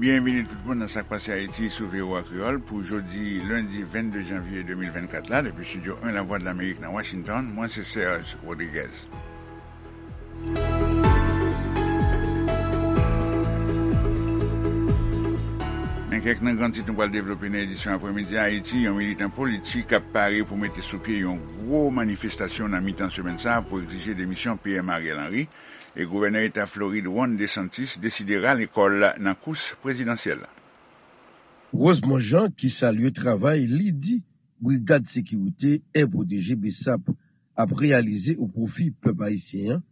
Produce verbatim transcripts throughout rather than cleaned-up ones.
Byenvini tout moun nan Sa k Pase Ayiti sou V O A Kreyòl pou jodi lendi vennde janvye de mil vennkat la, depi Estidyo en Lavwadlamerik nan Washington, mwen se Serge Rodriguez. Men kèk nan gran tit nou pral devlope nan edisyon aprèmidi a. Ayiti, yon militan politik ap pare pou mete sou pye yon gwo manifestasyon nan mitan semèn sa a pou egzije demisyon P M Ariel Henry, e gouvènè eta Florid Ron DeSantis deside rale kò l nan kous prezidansyèl la. Rosemond Jean, ki salye travay li di Brigad Sekirite Air Protégé, BSAP, ap reyalize o pwofi pèp ayisyen an,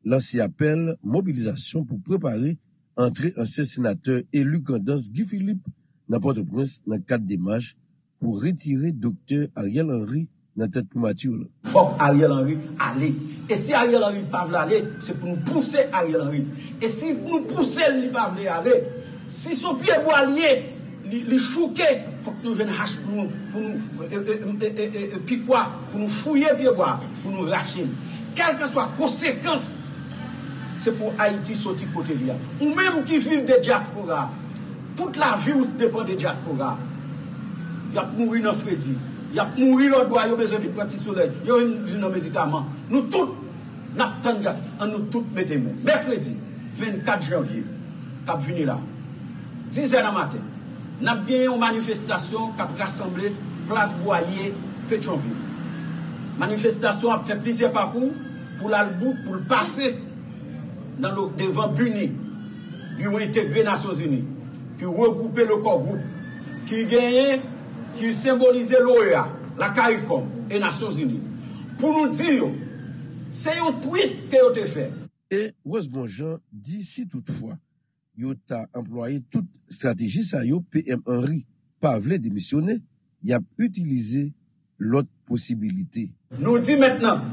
lanse apèl mobilizasyon pou prepare antre ansyen senatè eli Grandans Guy Philippe nan Pòtoprens nan kad demach pou retire Doktè Ariel Henry nan tèt primati la. Fòk Ariel Henry ale. E si Ariel Henry pa vle ale, se pou nou pouse Ariel Henry. E si nou pouse l, li pa vle ale, si se yon pyebwa l ye, li, li chouke, fòk nou jwenn hach pou nou, pou nou, e, e, e, e, e, e, pikwa, pou nou fouye pyebwa, pou nou rache l. Kèlkeswa konsekans, se pou Ayiti soti kote li a. Ou menm ki viv de dyaspora, tout lavi w depann de dyaspora. Y ap mouri nan fredi. Y ap mouri lòtbò a, yo bezwen vin pran ti solèy. Yo vin vin nan medikaman. Nou tout, n ap tann dyaspora. Ann nou tout mete men. Mèkredi vennkat janvye k ap vini la, dizè nan maten, n ap genyen yon manifestasyon k ap rasanble Plas Bwaye, Petyonvil. Manifestasyon ap fè plizyè pakou pou l al bout, pou l pase nan lo, devan BINUH, Biwo Entegre Nasyonzini, ki regwoupe le Core Group, ki genyen, ki senbolize l'OEA, la CARICOM e Nasyonzini, pou nou di yo, se yon twit ke yo te fè. E Rosemond Jean di si toutfwa yo ta anplwaye tout estrateji sa yo, P M Henry pa vle demisyone, y ap itilize lòt posibilite. Nou di mentnan,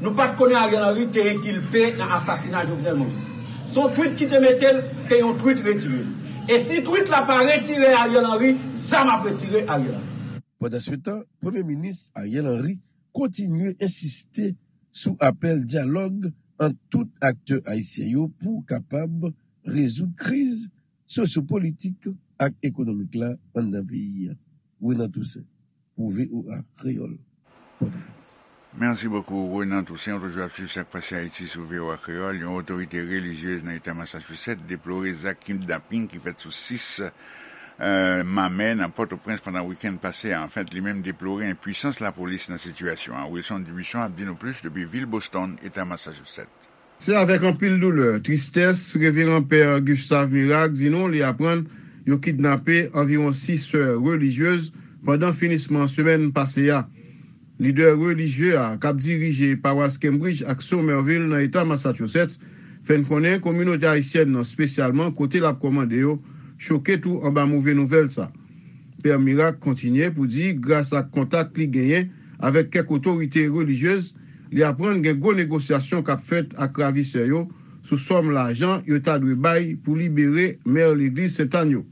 nou pa t konnen Ariel Henry te enkilpe nan asasina Jovenel Moïse. Se yon twit ki te mete l, ke yon twit retire l. E si twit la pa retire Ariel Henry, zam ap retire Ariel Henry. Pandansetan, Premye Minis Ariel Henry kontinye ensiste sou apèl dyalòg ant tout aktè ayisyen yo pou kapab rezoud kriz sosyopolitik ak ekonomik la anndan peyi a. Renan Toussaint, pou V O A Kreyòl, Pòtoprens. Mèsi bokou, Renan Toussaint. Ou toujou ap swiv Sa k Pase Ayiti sou V O A Kreyòl. Yon otorite relijyez nan eta Massachusetts deplore zak kidnaping ki fèt sou sis, e, mamè nan Pòtoprens pandan wikenn pase a. Anfèt, li menm deplore enpwisans lapolis nan sitiyasyon an. Wilson Dubuisson ap di nou plis depi vil Boston, eta Massachusetts. Se avèk anpil doulè, tristès, Reveran Pè Gustave Miracle di nou li aprann yo kidnape anviwon sis sè relijyez pandan finisman semèn pase a. Lidè relijye a, k ap dirije pawas Cambridge ak Somerville nan eta Massachusetts, fè n konnen kominote ayisyèn nan, espesyalman kote l ap kòmande yo, choke tou anba move nouvèl sa. Pè Miracle kontinye pou di, gras ak kontak li genyen avèk kèk otorite relijyez, li aprann gen gwo negosyasyon k ap fèt ak ravisè yo sou sòm lajan yo ta dwe bay pou libere mè legliz Sentàn yo.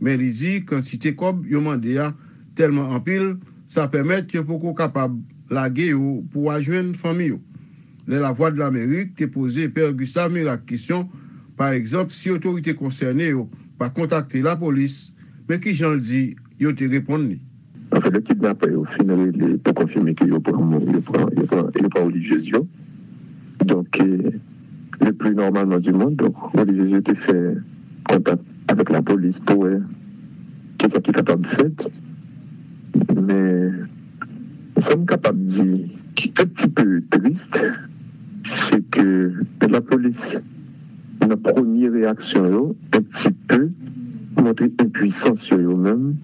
Men li di kantite kòb yo mande a tèlman anpil, sa pèmèt yo poko kapab lage yo pou al jwenn fanmi yo. Lè Lavwadlamerik te poze Pè Gustave Miracle kesyon, pa egzanp, si otorite konsène yo pa kontakte lapolis, men kijan l di yo te reponn li. Anfèt, lè kidnapè yo fin rele pou konfime ke yo pran moun, yo pran, yo pran, yo pran relijyez yo. Donk, e, le pli nòmalman di mond, donk, relijyez yo te fè kontak avèk lapolis pou wè kisa ki kapab fèt. Men, sa m kapab di ki un petit peu triste, se ke lapolis, nan premye reyaksyon yo, un petit peu montre enpwisans yo, yo menm,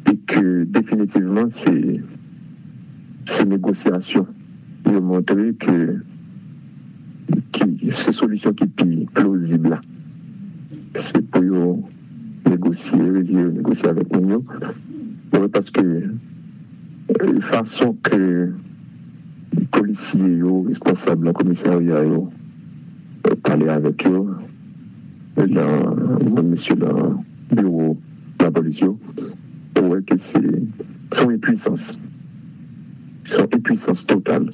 e ke definitivman se, se negosyasyon yo montre ke, ki, se solisyon ki pi plozib la. Se pou yo negosye, retire yo negosye avèk moun yo. Wi, paske, e, fason ke polisye yo, responsab nan komisarya yo, e, pale avèk yo, e, nan, moun mesye nan biwo lapolis yo, ou wè ke se, se yon enpwisans. Se yon enpwisans total.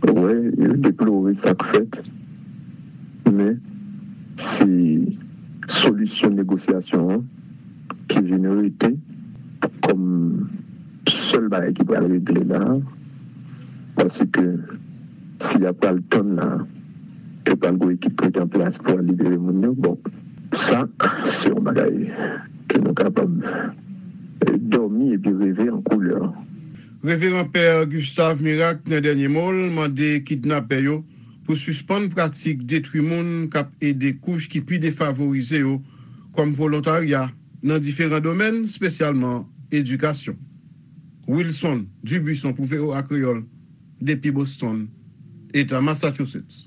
Ou wè, yo deplore sa k fèt, men se solisyon negosyasyon an ki vin rete kòm sèl bagay ki pral regle la, paske si y ap pral tann la, yo pral gen ekip ki an plas pou al libere moun yo. Bon, sa, se yon bagay ke nou kapab, eh, dòmi epi reve an koulè. Reveran Pè Gustave Miracle, nan dènye mo l, mande kidnapè yo pou sispann pratik detwi moun k ap ede kouch ki pi defavorize yo kòm volontarya nan diferan domèn, espesyalman edikasyon. Wilson Dubuisson pou V O A Kreyòl, depi Boston, Eta Massachusetts.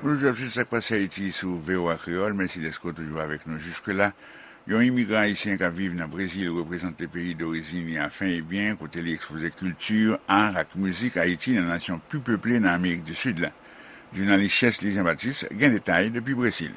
Bonjou ap suiv sa k pase Ayiti sou V O A Kreyòl. Mèsi dèske w toujou avèk nou jiske la. Yon imigran ayisyen k ap viv nan Brezil reprezante peyi dorizin li a fen e byen, kote li ekspoze kilti, ar ak mizik Ayiti nan nasyon pi peple nan Amerik di Sid la. Jounalis Chesly Jean Baptiste gen detay depi Brezil.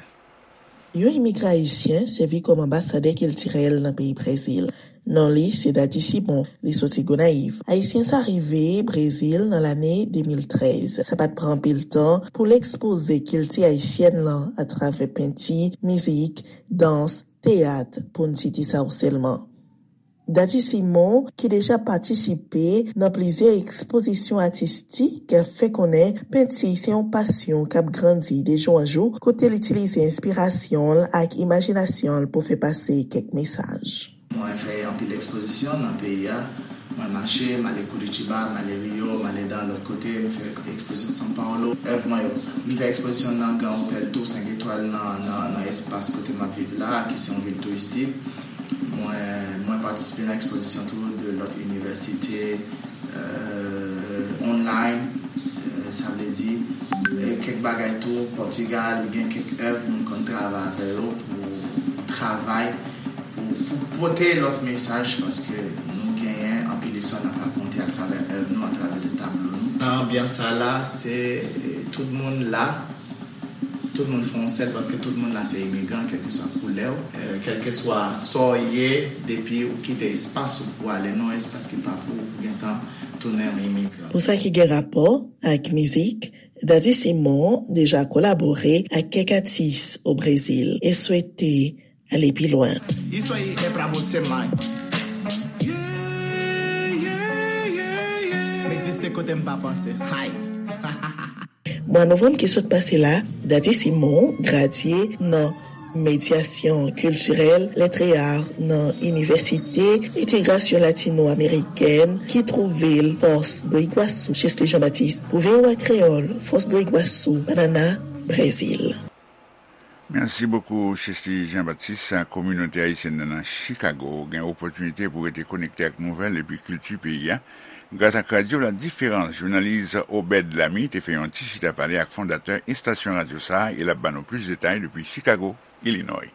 Yon imigran ayisyen sèvi kòm anbasadè kiltirèl nan peyi Brezil. Non li se Daddy Simon, li soti Gonayiv. Ayisyen sa rive Brezil nan lane de mil trèz. Sa pa t pran anpil tan pou l ekspoze kilti ayisyèn lan atravè penti, mizik, dans, teyat, pou n site sa yo sèlman. Daddy Simon, ki deja patisipe nan plizyè ekspozisyon atistik, fè konnen penti se yon pasyon k ap grandi de jou an jou, kote l itilize enspirasyon l ak imajinasyon l pou fè pase kèk mesaj. Mwen fè anpil ekspozisyon nan peyi a. Mwen mache, m ale Curitiba, m ale Rio, m ale nan lòt kote, m fè ekspozisyon São Paulo. Èv mwen yo, m fè ekspozisyon nan gran otèl tou senk etwal nan, nan, nan espas kote m ap viv la, ki se yon vil touristik. Mwen, mwen patisipe nan ekspozisyon tou de lòt inivèsite, euh, online, euh, sa vle di, euh, kèk bagay tou, Pòtigal, gen kèk èv mwen konn travay avè yo pou travay, pou, pou pote lòt mesaj, paske nou genyen anpil istwa n ap rakonte atravè èv nou, atravè de tablo nou. Nan anbyans sa la, se, eh, tout moun la, tout moun fè yon sèl, paske tout moun la se imigran, kèlkeswa koulè w, eh, kèlkeswa sa w ye, depi ou kite espas ou pou ale nan yon espas ki pa pou ou, ou gentan tounen yon imigran. Pou sa ki gen rapò ak mizik, Daddy Simon deja kolabore ak kèk atis o Brezil e swete ale pi lwen. Isso aí é pra você, mãe. M egziste kote m pa panse. Hay! Mwa novanm ki sot pase la, Daddy Simon gradye nan medyasyon kiltirèl, lèt e ar nan Inivèsite Entegrasyon Latino Amerikèn ki twouve l Foz do Iguaçu. Chesly Jean Baptiste pou V O A Kreyòl, Foz do Iguaçu, Paraná, Brezil. Mèsi bokou, Chesly Jean Baptiste. Kominote ayisyèn nan, nan Chicago gen opòtinite pou rete konekte ak nouvèl epi kilti peyi a gras ak Radyo La Diferans. Jounalis Obed Lamy te fè yon ti chita pale ak fondatè estasyon radyo sa a e l ap ban nou plis detay depi Chicago, Illinois.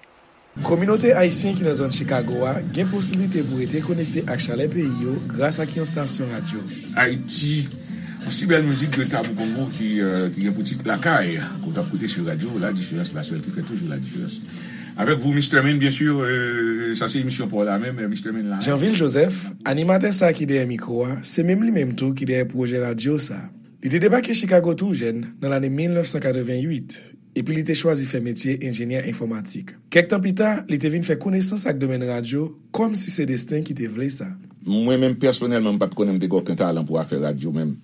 Kominote ayisyen ki nan zòn Chicago a gen posiblite pou rete konekte ak chalè peyi yo gras ak yon estasyon radyo. Ayiti, yon si bèl mizik de Tabou Kongo ki, euh, ki gen pou tit Lakay, ke w t ap koute sou radyo La Diferans, la sèl ki fè toujou la diferans. Avec vous, Mister Min, bien sûr, euh, sa se emisyon pa w la menm, euh, Mister Min la. Janvil Joseph, animatè sa a ki dèyè mikwo a, se menm li menm tou ki dèyè pwojè radyo sa a. Li te debake Chicago tou jèn, nan lane mil nèf san katreven uit, epi li te chwazi fè metye enjenyè enfòmatik. Kèk tan pita, li te vin fè konesans ak domèn radyo, kòmsi se desten ki te vle sa. Mwen menm, pèsonèlman, m pa t konnen m te gen okenn talan pou afè radyo menm.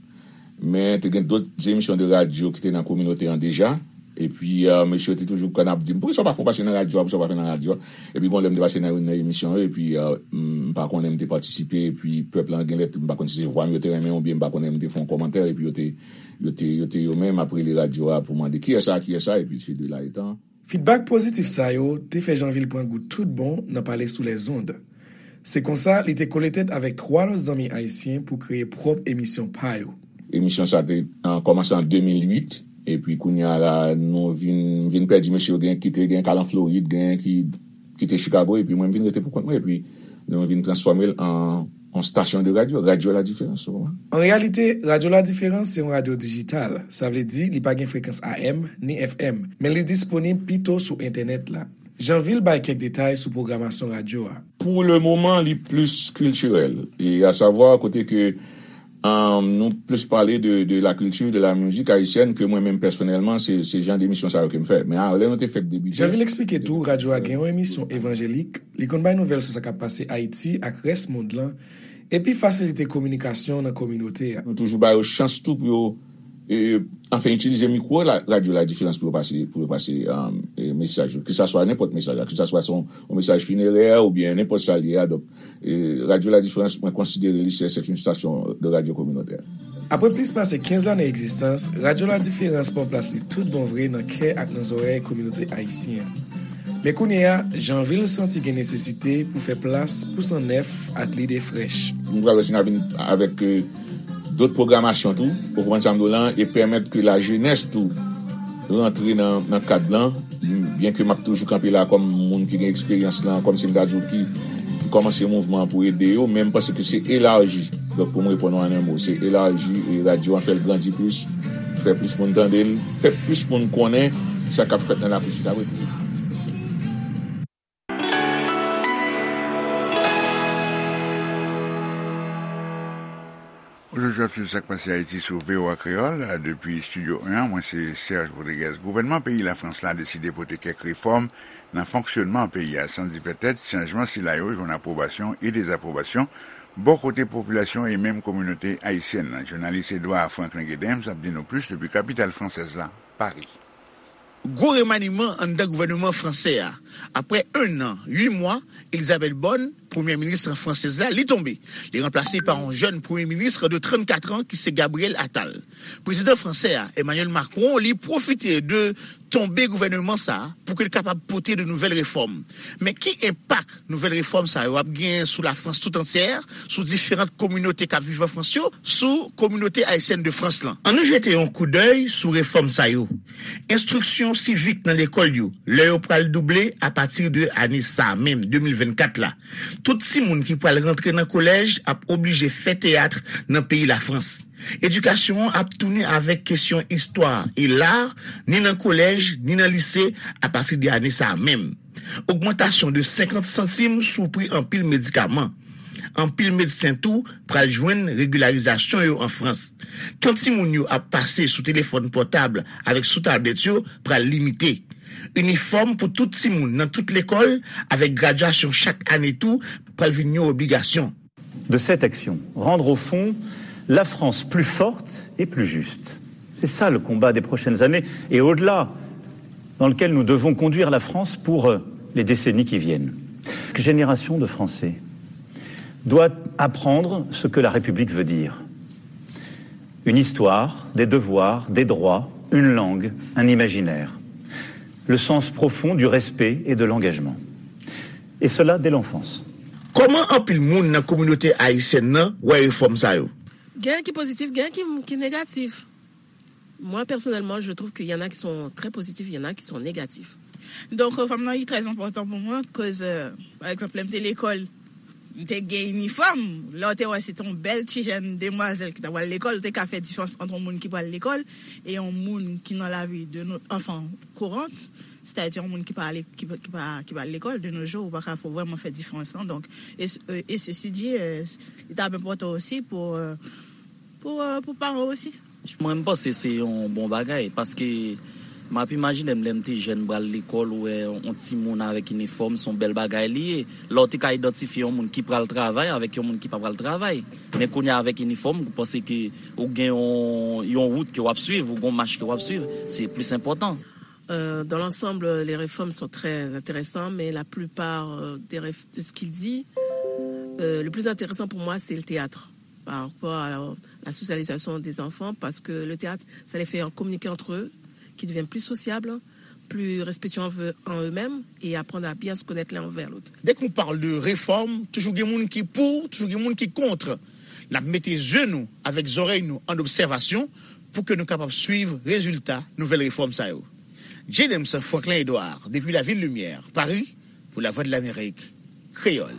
Men, te gen dòt emisyon de radyo ki te nan kominote an deja. Epi, euh, mesye yo te toujou konn ap di m, "Poukisa w pa fè yon pase nan radyo a? Poukisa w pa fè nan radyo a?" Epi, gon lè m te pase nan youn nan emisyon yo, epi, euh, m pa konnen m te patisipe, epi pèp lan gen lè, m pa konn si se vwa m yo te renmen, oubyen m pa konnen m te fè yon kòmantè, epi yo te, yo te, yo te yo menm ap rele radyo a pou mande, "Kiyès sa? Kiyès sa?" Epi, se de la etan. Fidbak pozitif sa yo te fè Janvil pran gou tout bon nan pale sou lèzond. Se konsa, li te kole tèt avèk twa lòt zanmi ayisyen pou kreye pwòp emisyon pa yo. Emisyon sa te, an, kòmanse an de mil uit, epi kounye a la, nou vin, vin pèdi mesye yo, gen ki te, gen k al an Florid, gen ki kite Chicago, epi mwen, m vin rete pou kont mwen, epi nou vin transfòme l an, an stasyon de radyo, Radyo La Diferans, ou konprann? An reyalite, Radyo La Diferans se yon radyo dijital, sa vle di li pa gen frekans A M ni F M, men li disponib pito sou entènèt la. Janvil bay kèk detay sou pwogramasyon radyo a. Pou le moman, li plis kiltirèl, e a savwa kote ke Um, nou plis pale de, de la culture, de la musique haïtienne ke mwen menm pèsonèlman, se, se jan de emisyon sa yo ke m fè. Men a, lè nou te fèk debite. Janvil eksplike tou, radyo a gen yon emisyon evanjelik, li konn bay nouvèl sou sa k ap pase Ayiti ak rès mond lan, epi fasilite kominikasyon nan kominote a. Nou toujou ba yo chans tou pou yo, e, anfen, itilize mikwo la, radyo La Différence pou yo pase, pou yo pase, um, e, mesaj yo. Ke sa swa nenpòt mesaj la, ke sa swa se yon, yon mesaj finerè oubyen nenpòt sa l ye a. Donk, E, Radio La Différence, mwen konsidere li se, c'est une station de radio communautaire. Apre plis pase kenz lane egzistans, Radio La Différence pran plas li tout bon vre nan kè ak nan zòrèy kominote ayisyen an. Men kounye a, Janvil santi gen nesesite pou fè plas pou san nèf ak lide frèch. Nou pral wè si n a vin avèk, e, dòt pwogramasyon tou, ou konprann sa m di w lan, e pèmèt ke lajenès tou rantre nan, nan kad lan, byen ke m ap toujou kanpe la kòm moun ki gen eksperyans lan, kòm si m ta di w ki, ki kòmanse mouvman an pou ede yo, men m panse ke se elaji. Donk, pou m reponn w an en mo, se elaji e radyo an, fè l grandi plis, fè plis moun tande l, fè plis moun konnen sa k ap fèt nan Lafrik Sidabrite. Ojodi w ap swiv Sa k Pase Ayiti sou V O A Kreyòl, depi Estidyo en an, mwen se Serge Rodriguez. Gouvènman peyi Lafrans la deside pote kèk refòm nan fonksyònman peyi a, san di pètèt chanjman sila yo jwenn apwobasyon e dezapwobasyon bò kote popilasyon e menm kominote ayisyèn nan. Jounalis Edouard Franklin Gedens ap di nou plis depi kapital fransèz la, Pari. Gwo remaniman anndan gouvènman fransè a. Après un an, huit mois, Elisabeth Borne, premyè minis fransèz la, li tonbe. Li ranplase pa yon jèn premye minis de trannkat an ki se Gabriel Attal. Prezidan fransè a, Emmanuel Macron, li pwofite de tonbe gouvènman sa a pou ke l kapab pote de nouvèl refòm. Men ki enpak nouvèl refòm sa yo ap gen sou Lafrans tout antyè, sou diferan kominote k ap viv an Frans yo, sou kominote ayisyèn de Frans lan? Ann nou jete yon koudèy sou refòm sa yo. Enstriksyon sivik nan lekòl yo, lè yo pral double apati de ane sa a menm, de mil vennkat la. Tout timoun ki pral rantre nan kolèj ap oblije fè teyat nan peyi Lafrans. Edikasyon an ap tounen avèk kesyon istwa e lar, ni nan kolèj, ni nan lise, apati de ane sa a menm. Ogmantasyon de senkant santim sou pri anpil medikaman. Anpil medsen tou pral jwenn regilarizasyon yo an Frans. Tan timoun yo ap pase sou telefòn pòtab avèk sou tablèt yo pral limite. Inifòm pou tout timoun nan tout lekòl, avèk gradyasyon chak ane tou, pral vin yon obligasyon. De cette action, rendre au fond la France plus forte et plus juste. C'est ça le combat des prochaines années et au-delà, dans lequel nous devons conduire la France pour, euh, les décennies qui viennent. Chaque génération de Français doit apprendre ce que la République veut dire. Une histoire, des devoirs, des droits, une langue, un imaginaire. Le sens profond du respect et de l'engagement. Et cela dès l'enfance. Kòman anpil moun nan kominote ayisyèn nan wè refòm sa yo? Gen ki pozitif, gen ki, ki negatif. Moi, personnellement, je trouve qu'il y en a qui sont très positifs, il y en a qui sont négatifs. Donk, fanm nan, li trè enpòtan pou mwen, koz, euh, pa egzanp, lè m te lekòl, m te gen inifòm. Lè w te wè se te yon bèl ti jèn demwazèl ki t ap al lekòl, ou te ka fè diferans ant yon moun ki pral lekòl e yon moun ki nan lavi de nou, anfen, kourant, sètadi yon moun ki pa ale, ki, ki pa, ki pa al lekòl. De nos jours, ou pa ka fè, vrèman fè diferans lan. Donk, e, e, e sesi di, euh, li t ap enpòtan osi pou, euh, pou, euh, pou paran osi. Mwen, m panse se yon bon bagay, paske m ap imajine m lè m te jèn, m pral lekòl, ou wè yon timoun avèk inifòm, se yon bèl bagay li ye. Lè w te ka idantifye yon moun ki pral travay avèk yon moun ki pa pral travay. Men kounye a, avèk inifòm, ou panse ke ou gen yon, yon wout ke w ap swiv, ou gen yon mach ke w ap swiv, se plis enpòtan. Euh, dans l'ensemble, les réformes sont très intéressantes, mais la plupart, euh, des réf-, de ce qu'il dit, euh, le plus intéressant pour moi, c'est le théâtre, par rapport à la, la socialisation des enfants, parce que le théâtre, ça les fait communiquer entre eux, qu'ils deviennent plus sociables, plus respectueux envers, en eux-mêmes et apprendre à bien se connaître l'un envers l'autre. Dès qu'on parle de réforme, toujou gen moun ki pou, toujou gen moun ki kont. N ap mete je nou avèk zòrèy nou an obsèvasyon pou ke nou kapab swiv rezilta nouvèl refòm sa yo. James Franklin Edouard, depi Lavil Limyè, Pari, pou Lavwadlamerik, Kreyòl.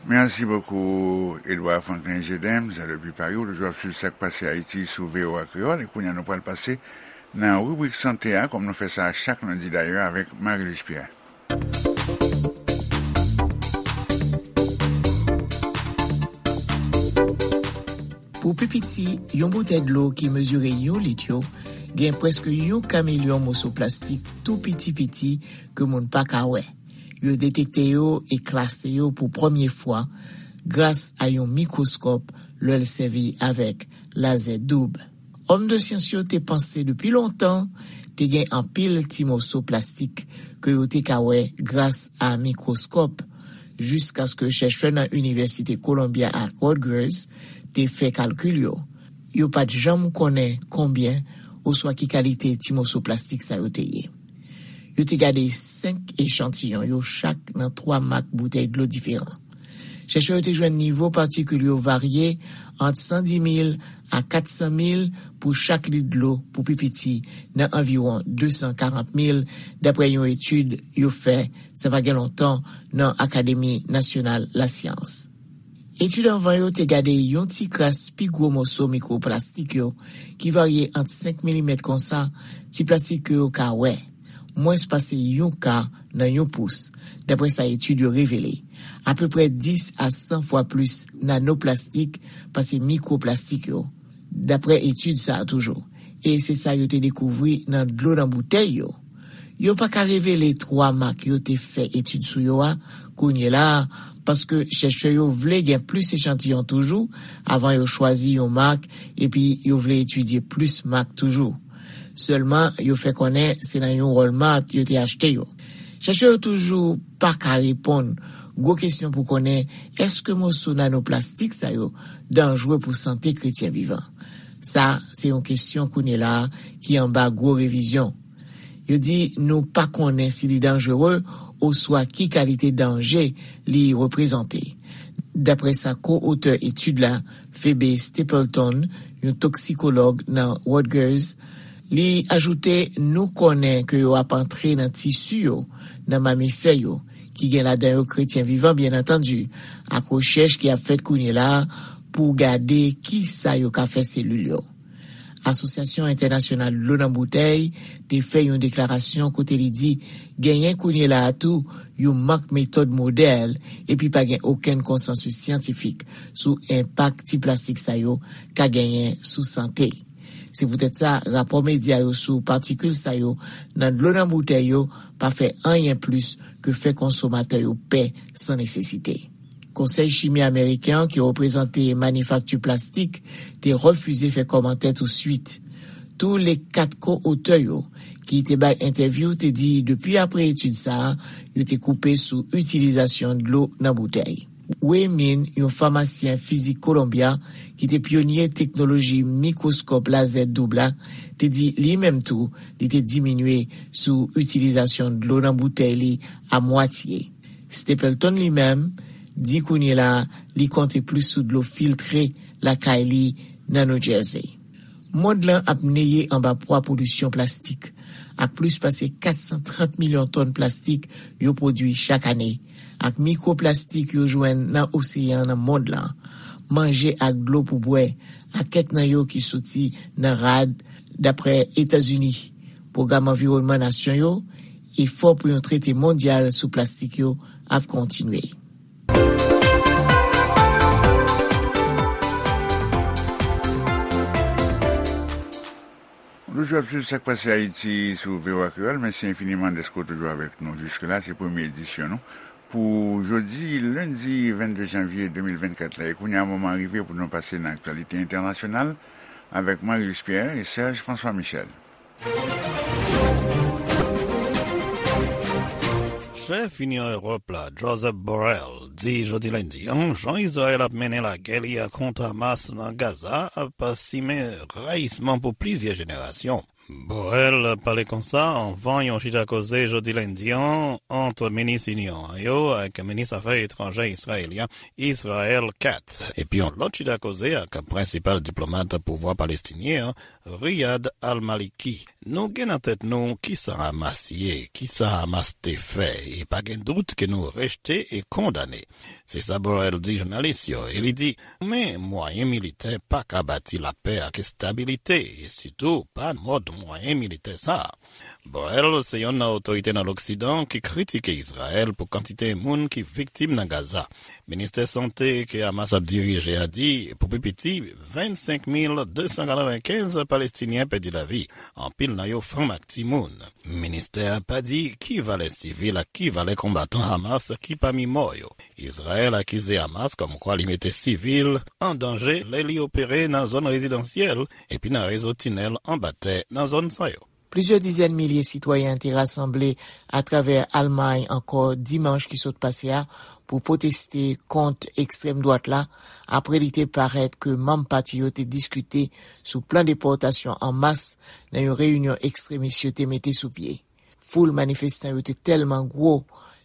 Merci beaucoup, Edouard Franklin Gedems, depi Pari. Ou toujou ap swiv Sa k Pase Ayiti sou V O A Kreyòl. E kounye a, nou pral pase nan ribrik sante a, kòm nou fè sa chak lendi dayè, avèk Marie-Luce Pierre. Pou Pou pi piti, yon boutèy dlo ki mezire yon lit yo gen prèske yon ka milyon moso plastik tou piti piti ke moun pa ka wè. Yo detekte yo e klase yo pou premye fwa gras a yon mikwoskòp lè l sèvi avèk lazè doub. Òm de syans yo te panse depi lontan te gen anpil ti moso plastik ke yo te ka wè gras a mikwoskòp, jiskaske chèchè nan Inivèsite Columbia ak Rutgers te fè kalkil yo. Yo pa t janm konnen konbyen oswa ki kalite ti moso plastik sa yo te ye. Yo te gade senk echantiyon yo chak nan twa mak boutèy dlo diferan. Chèchè yo te jwenn nivo patikil yo varye ant san di mil a kat san mil pou chak lit dlo pou pi piti nan anviwon de san karant mil, dapre yon etid yo fè sa pa gen lontan nan Akademi Nasyonal Lasyans. Etid anvan yo te gade yon ti kras pi gwo moso mikroplastik yo ki varye ant senk milimèt konsa, ti plastik ke yo ka wè, mwens pase yon ka nan yon pous, dapre sa etid yo revele. Apeprè dis a san fwa plis nanoplastik pase mikroplastik yo, dapre etid sa a toujou. E se sa yo te dekouvri nan dlo nan boutèy yo. Yo pa ka revele twa mak yo te fè etid sou yo a kounye la a, paske chèchè yo vle gen plis echantiyon toujou avan yo chwazi yon mak, epi yo vle etidye plis mak toujou. Sèlman, yo fè konnen se nan yon Walmart yo te achte yo. Chèchè yo toujou pa ka reponn gwo kesyon pou konnen èske moso nanoplastik sa yo danjre pou sante kretyen vivan. Sa se yon kesyon kounye la a ki anba gwo revizyon. Yo di nou pa konnen si li danjere oswa ki kalite danje li reprezante. Dapre sa ko-otè etid la, Phoebe Stapleton, yon toksikològ nan Rutgers, li ajoute nou konnen ke yo ap antre nan tisi yo, nan mamifè yo, ki gen ladan yo kretyen vivan, byen antandi, ak rechèch ki ap fèt kounye la a pou gade ki sa yo ka fè selil yo. Asosyasyon Entènasyonal Dlo nan Boutèy te fè yon deklarasyon kote li di genyen kounye la a tou yon mank metòd modèl, epi pa gen okenn konsansis syantifik sou enpak ti plastik sa yo ka genyen sou sante. Se poutèt sa, rapò medya yo sou patikil sa yo nan dlo nan boutèy yo pa fè anyen plis ke fè konsomatè yo pè san nesesite. Konsèy Chimi Ameriken an, ki reprezante manifakti plastik, te refize fè kòmantè touswit. Tou le kat ko-otè yo, ki te bay entèvyou, te di depi apre etid sa a, yo te koupe sou itilizasyon dlo nan boutèy. Wei Min, yon famasyen fizik Kolonbya ki te pyonye teknoloji mikwoskòp lazè doub la, te di li menm tou li te diminye sou itilizasyon dlo nan boutèy li a mwatye. Stapleton li menm di kounye la a li konte plis sou dlo filtre lakay li nan New Jersey. Mond lan ap neye anba pwa polisyon plastik, ak plis pase kat san trant milyon tòn plastik yo pwodui chak ane, ak mikroplastik yo jwenn nan oseyan nan mond lan, manje ak dlo pou bwè, ak kèk nan yo ki soti nan rad, dapre Etazini. Pwogram anviwònman nasyon yo, efò pou yon trete mondyal sou plastik yo ap kontinye. Nou toujou ap swiv Sak Pase Ayiti sou V O A Kreyòl. Mèsi enfiniman dèske w toujou avèk nou jiske la. Se premye edisyon nou pou jodi lendi vennde janvye de mil vennkat la. E kounye a, moman an rive pou nou pase nan aktyalite entènasyonal avèk Marius Pierre e Serge François Michel. Chèf Inyon Ewòp la, Josep Borrell, di jodi lendi an jan Izrayèl ap mennen lagè li a kont Hamas nan Gaza ap simen rayisman pou plizyè jenerasyon. Borrell pale konsa anvan yon chita koze jodi lendi an ant minis Inyon an yo ak minis afè etranjè Izrayelyen Israel Katz, epi yon lòt chita koze ak prensipal diplomat pouvwa palestinyen an, Riyad al-Maliki. Nou gen nan tèt nou kisa Hamas ye, kisa Hamas te fè, e pa gen dout ke nou rejte e kondane. Se sa Borrell di jounalis yo, e li di, men mwayen militè pa ka bati lapè ak estabilite, e sitou pa mòd mwayen militè sa a. Borrell se yonn nan otorite nan Loksidan ki kritike Izrayèl pou kantite moun ki viktim nan Gaza. Ministè sante ke Hamas ap dirije a di, pou pi piti, vennsenk mil de san katrevenkenz Palestinyen pèdi lavi, anpil nan yo fanm ak timoun. Ministè a pa di ki valè sivil ak ki valè konbatan Hamas ki pami mò yo. Izrayèl akize Hamas kòmkwa li mete sivil an danje lè li opere nan zòn rezidansyèl epi nan rezo tinèl anba tè nan zòn sa yo. Plizyè dizèn milye sitwayen te rasanble atravè Almay ankò dimanch ki sot pase a pou pwoteste kont ekstrèm dwat la, apre li te parèt ke manm pati yo te diskite sou plan depòtasyon an mas nan yon reyinyon ekstremis yo te mete sou pye. Foul manifestan yo te tèlman gwo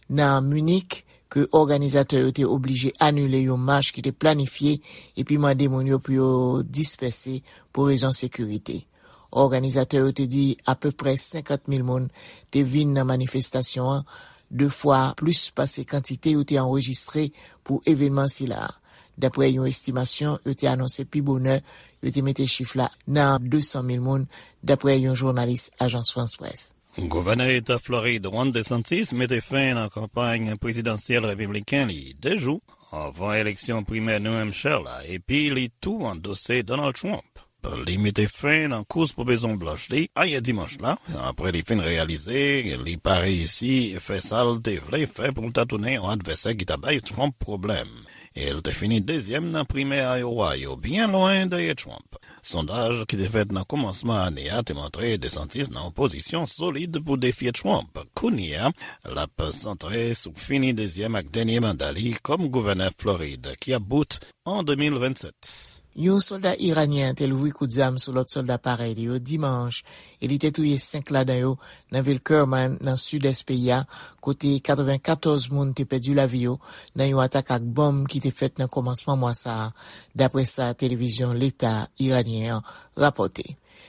nan Minik ke òganizatè yo te oblije anile yon mach ki te planifye epi mande moun yo pou yo dispèse pou rezon sekirite. Òganizatè yo te di apeprè senkant mil moun te vin nan manifestasyon an, de fwa plis pase kantite yo te anrejistre pou evènman sila a. Daprè yon estimasyon, yo te anonse pi bonè, yo te mete chif la nan de san mil moun, daprè yon jounalis Ajans Frans Près. Gouvènè Eta Florid Ron DeSantis mete fen nan kanpay prezidansyèl repibliken li de jou anvan eleksyon primè New Hampshire la, epi li tou andose Donald Trump. Li mete fen nan kous pou Mezon Blanch li ayè dimanch la, apre li fin reyalize li pa reyisi fè sa l te vle fè pou l ta tounen yon advèsè ki ta bay Trump pwoblèm. E l te fini dezyèm nan primè Iowa yo, byen lwen dèyè Trump. Sondaj ki te fèt nan kòmansman ane a te montre DeSantis nan yon pozisyon solid pou defye Trump. Kounye a, l ap santre sou fini dezyèm ak dènye manda li kòm gouvènè Florid, ki ap bout an de mil vennsèt. Yon sòlda iranyen te louvri kout zam sou lòt sòlda parèy li yo dimanch, e li te touye senk ladan yo nan vil Kerman, nan sidès peyi a, kote katrevenkatòz moun te pèdi lavi yo nan yon atak ak bonm ki te fèt nan kòmansman mwa sa a, daprè sa televizyon leta iranyen an rapòte.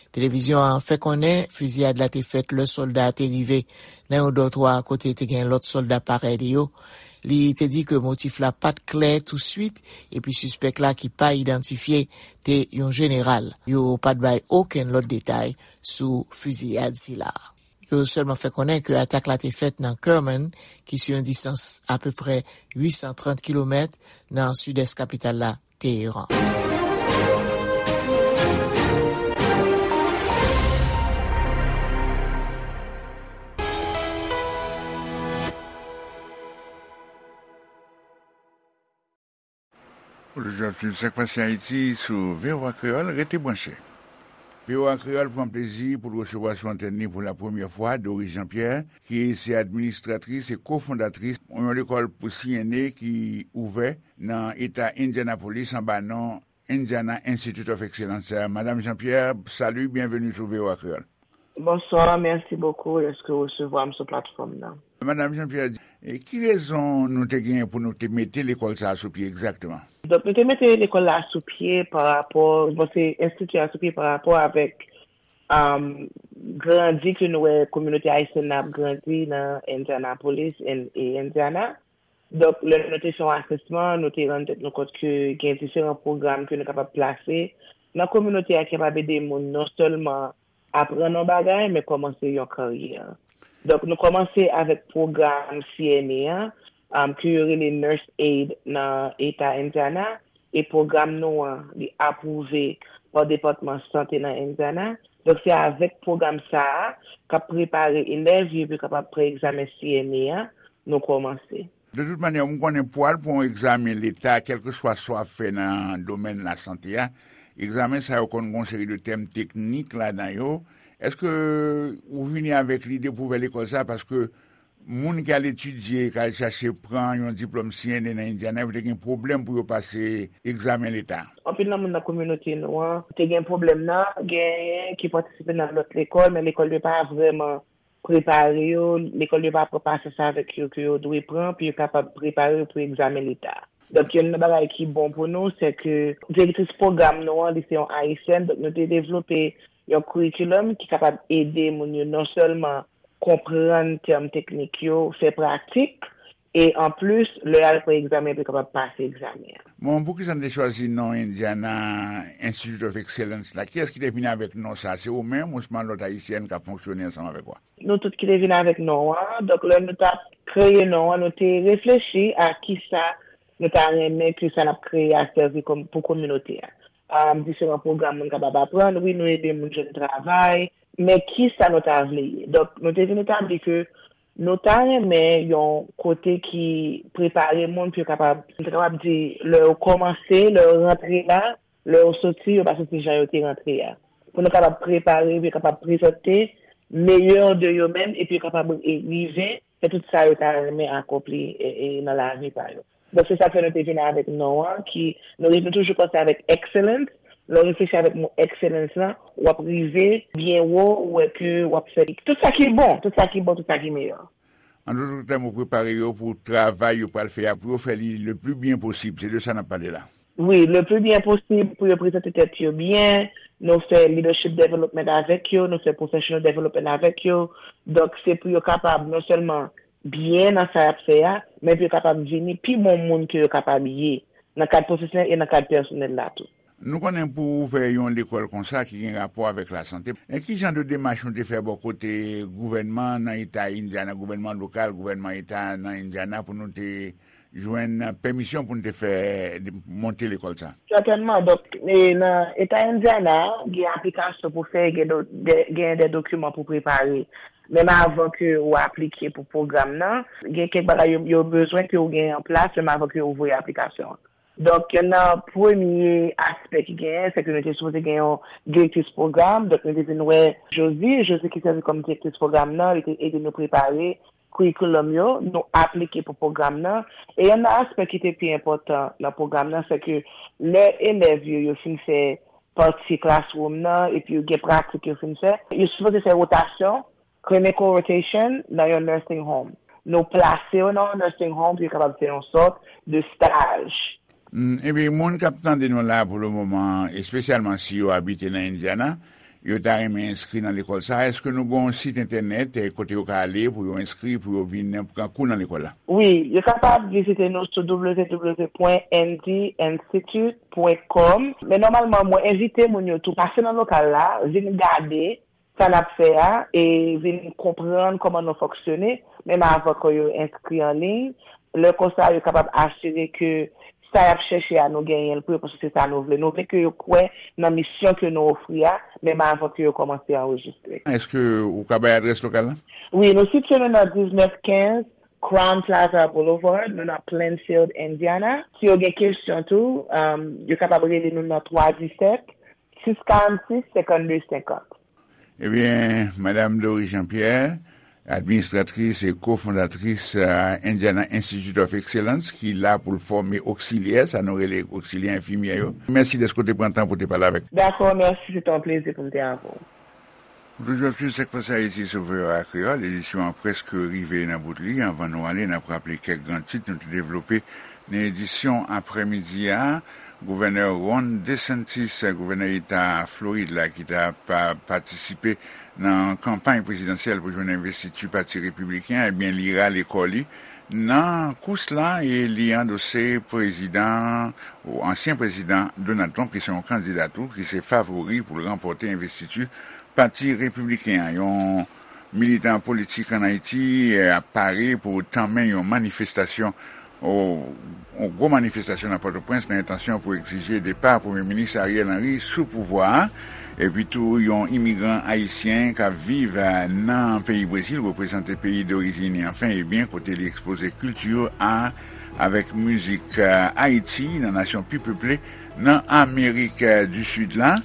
Televizyon an fè konnen fiziyad la te fèt lè sòlda a te rive nan yon dòtwa kote te gen lòt sòlda parèy li yo. Li te di ke motif la pa t klè touswit, epi sispèk la ki pa idantifye te yon jeneral. Yo pa t bay okenn lòt detay sou fiziyad sila. Yo sèlman fè konnen ke atak la te fèt nan Kerman, ki sou yon distans apeprè uit san trant kilomèt nan sidès kapital la, Teheran. Ou toujou ap swiv Sak Pase Ayiti sou V O A Kreyòl. Rete branche. V O A Kreyòl pran plezi pou l resevwa sou antèn li pou la premyè fwa Doris Jean-Pierre, ki se administratris e kofondatris yon lekòl pou C N A ki ouvè nan eta Indianapolis anba non Indiana Institute of Excellence. Madam Jean-Pierre, salut, bienvenue sou V O A Kreyòl. Bonsoir, merci beaucoup dèske w resevwa m sou platfòm nan. Madam Jean-Pierre, e ki rezon nou te genyen pou nou te mete lekòl sa a sou pye egzakteman? Donk, nou te mete lekòl la sou pye pa rapò, bon, se enstiti a sou pye pa rapò avèk, um, grandi ke nou wè kominote ayisyèn nan ap grandi nan Indianapolis en- e Indiana. Donk, lè nou te fè yon asèsman, nou te rann tèt nou kont ke gen diferan pwogram ke nou kapab plase nan kominote a ki kapab ede moun non sèlman aprann yon bagay, men kòmanse yon karyè. Donk, nou kòmanse avèk pwogram C N A an, um, ke yo rele Nurse Aid nan eta Indiana, e pwogram nou an, li apwouve pa Depatman Sante nan Indiana. Donk, se avèk pwogram sa a, k ap prepare elèv yo pou yo kapab pran egzamen C N A an, nou kòmanse. De tout manyè, m konnen pou al pran yon egzamen leta, kèlkeswa sa w ap fè nan domèn lasante a, egzamen sa yo konn gen yon seri de tèm teknik ladan yo. Èske ou vini avèk lide pou ouvè lekòl sa a? Paske moun ki al etidye, ki al chache pran yon diplòm C N A nan Indiana, yo te gen pwoblèm pou yo pase egzamen leta. Anpil nan moun nan kominote nou an te gen pwoblèm nan, genyen ki patisipe nan lòt lekòl, men lekòl yo pa vrèman prepare yo, lekòl yo pa pran pasyans avèk yo ke yo dwe pran pou yo kapab prepare yo pou egzamen leta. Donk, youn nan bagay ki bon pou nou, se ke direktris pwogram nou an, li se yon Ayisyèn, donk nou te devlope yon curriculum ki kapab ede moun yo non sèlman konprann tèm teknik yo, fè pratik, e anplis, lè y al pran egzamen, pou yo kapab pase egzamen an. Bon, poukisa n te chwazi non Indiana Institute of Excellence la? Kiyès ki te vini avèk non sa? Se ou menm ousman lòt ayisyèn k ap fonksyone ansanm avèk ou a? Nou tout ki te vin avèk non an. Donk, lè nou t ap kreye non an, nou te reflechi a kisa nou ta renmen ke sa n ap kreye a sèvi pou kominote a. Diferan pwogram moun kapab aprann. Wi, nou ede moun jwenn travay, men kisa nou ta vle ye? Donk, nou te vin etabli ke nou ta renmen yon kote ki prepare moun pou yo kapab, m ta kapab di, lè yo kòmanse, lè yo rantre la, lè yo soti, yo pa soti jan yo te rantre a. Pou nou kapab prepare, pou yo kapab prezante meyè de yo menm, epi yo kapab rive fè tout sa yo ta renmen akonpli nan lavi pa yo. Donk, se sa k fè nou te vin avèk non an, ki, nou, nou toujou panse avèk excellence. Lè w reflechi avèk mo excellence lan, w ap rive byen wo, ou wè ke w ap fè tout sa ki bon, tout sa ki bon, tout sa ki meyè. An dòt tèm, ou prepare yo pou travay yo pral fè a, pou yo fè li le pli byen posib. Se de sa n ap pale la. Wi, le pli byen posib pou yo prezante tèt yo byen. Nou fè leadership development avèk yo, nou fè professional development avèk yo. Donk, se pou yo kapab non sèlman byen nan sa y ap fè a, men pou yo kapab vini pi bon moun ke yo kapab ye nan kad pwofesyonèl e nan kad pèsonèl la tou. Nou konnen pou ouvè yon lekòl konsa ki gen rapò avèk lasante, e ki jan de demach nou te fè bò kote gouvènman nan eta Indiana, gouvènman lokal, gouvènman eta nan Indiana pou nou te jwenn pèmisyon pou n te fè monte lekòl sa? Sètènman. Donk, nan eta Indiana, gen aplikasyon pou fè, gen de dokiman pou prepare. Menm avan ke ou aplike pou pwogram nan, gen kèk bagay yo bezwen ke ou gen an plas menm avan ke ou voye aplikasyon an. Donk, youn nan premye aspè ki genyen, se ke nou te sipoze gen yon direktris pwogram. Donk, nou te vin wè Josie. Josie ki sèvi kòm direktris pwogram nan, li te ede nou prepare curriculum yo, nou aplike pou pwogram nan. E youn nan aspè ki te pi enpòtan nan pwogram nan, se ke lè elèv yo, yo fin fè pati classroom nan, epi yo gen pratik yo fin fè, yo sipoze fè wotasyon, clinical rotation, nan yon nursing home. Nou plase yo nan yon nursing home pou yo kapab fè yon sòt de staj. Ebyen, moun k ap tande nou la pou le moman, espesyalman si yo abite nan Indiana, yo ta renmen enskri nan lekòl sa, èske nou gen yon sit entènèt kote yo ka ale pou yo enskri, pou yo vin pran kou nan lekòl la? Wi, yo kapab vizite nou sou www pwen n d institute pwen com. Men nòmalman, mwen envite moun yo tou pase nan lokal la, vin gade sa n ap fè a e vin konprann kòman nou fonksyone, menm avan ke yo enskri an liy. Lè konsa, yo kapab asire ke sa y ap chèche a, nou genyen l pou yo, paske se sa nou vle. Nou vle ke yo kwè nan misyon ke nou ofri a, menm avan ke yo kòmanse anrejistre. Èske ou ka bay adrès lokal la? Wi, nou sitiye nou nan diznèf kenz Crowne Plaza Boulevard, nou nan Plainfield, Indiana. Si yo gen kesyon tou, yo kapab rele nou nan twa disèt, sis karannsis, senkannde senkant. Ebyen, Madam Doris Jean Pierre, administratris e kofondatris Indiana Institute of Excellence, ki la pou l fòme oksilyè, sa nou rele oksilyè enfimyè yo. Mèsi dèske w te pran tan pou w te pale avèk nou. Dakò, mèsi, se te yon plezi pou m te avè w. Ou toujou ap swiv Sak Pase Ayiti sou V O A Kreyòl. Edisyon an prèske rive nan bout li. Anvan nou ale, n ap raple kèk gran tit nou te devlope nan edisyon aprèmidi a. Gouvènè Ron DeSantis, gouvènè eta Florid la, ki t ap patisipe nan kanpay prezidansyèl pou jwenn envestiti Pati Repibliken an, ebyen, li rale kò li nan kous la e li andose prezidan, ou ansyen prezidan Donald Trump, ki se yon kandida tou, ki se favori pou l ranpòte envestiti Pati Repibliken an. Yon militan politik ann Ayiti ap pare pou tanmen yon manifestasyon, yon gwo manifestasyon nan Pòtoprens nan entansyon pou egzije depa Premye Minis Ariel Henry sou pouvwa a. Epi tou, yon imigran ayisyen k ap viv nan peyi Brezil, reprezante peyi dorijin li, anfen, ebyen, kote li ekspoze kilti a avèk mizik Ayiti nan nasyon pi peple nan Amerik di Sid la.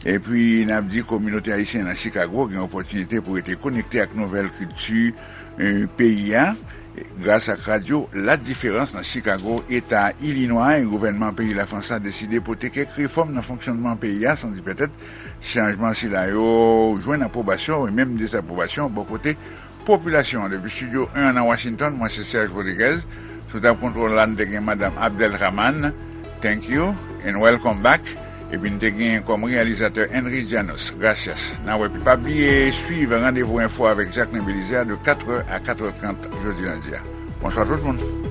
Epi, n ap di kominote ayisyen nan Chicago gen opòtinite pou rete konekte ak nouvèl kilti peyi a gras ak radyo La Diferans nan Chicago, eta Ilinwa, e gouvènman peyi Lafrans la deside pote kèk refòm nan fonksyònman peyi a, san di pètèt chanjman sila yo jwenn apwobasyon e menm dezapwobasyon bò kote popilasyon an. Depi estidyo en an nan Washington, mwen se Serge Rodriguez. Sou tab kontwòl la, n te gen Madanm Abdelrahman. Thank you and welcome back. Epi n te gen kòm reyalizatè Henry Janos. Gracias. N a wè pi. Pa bliye swiv Randevou Enfo avèk Jacquelin Belizaire de katrè a katrè trant jodi lendi a. Bonswa tout moun.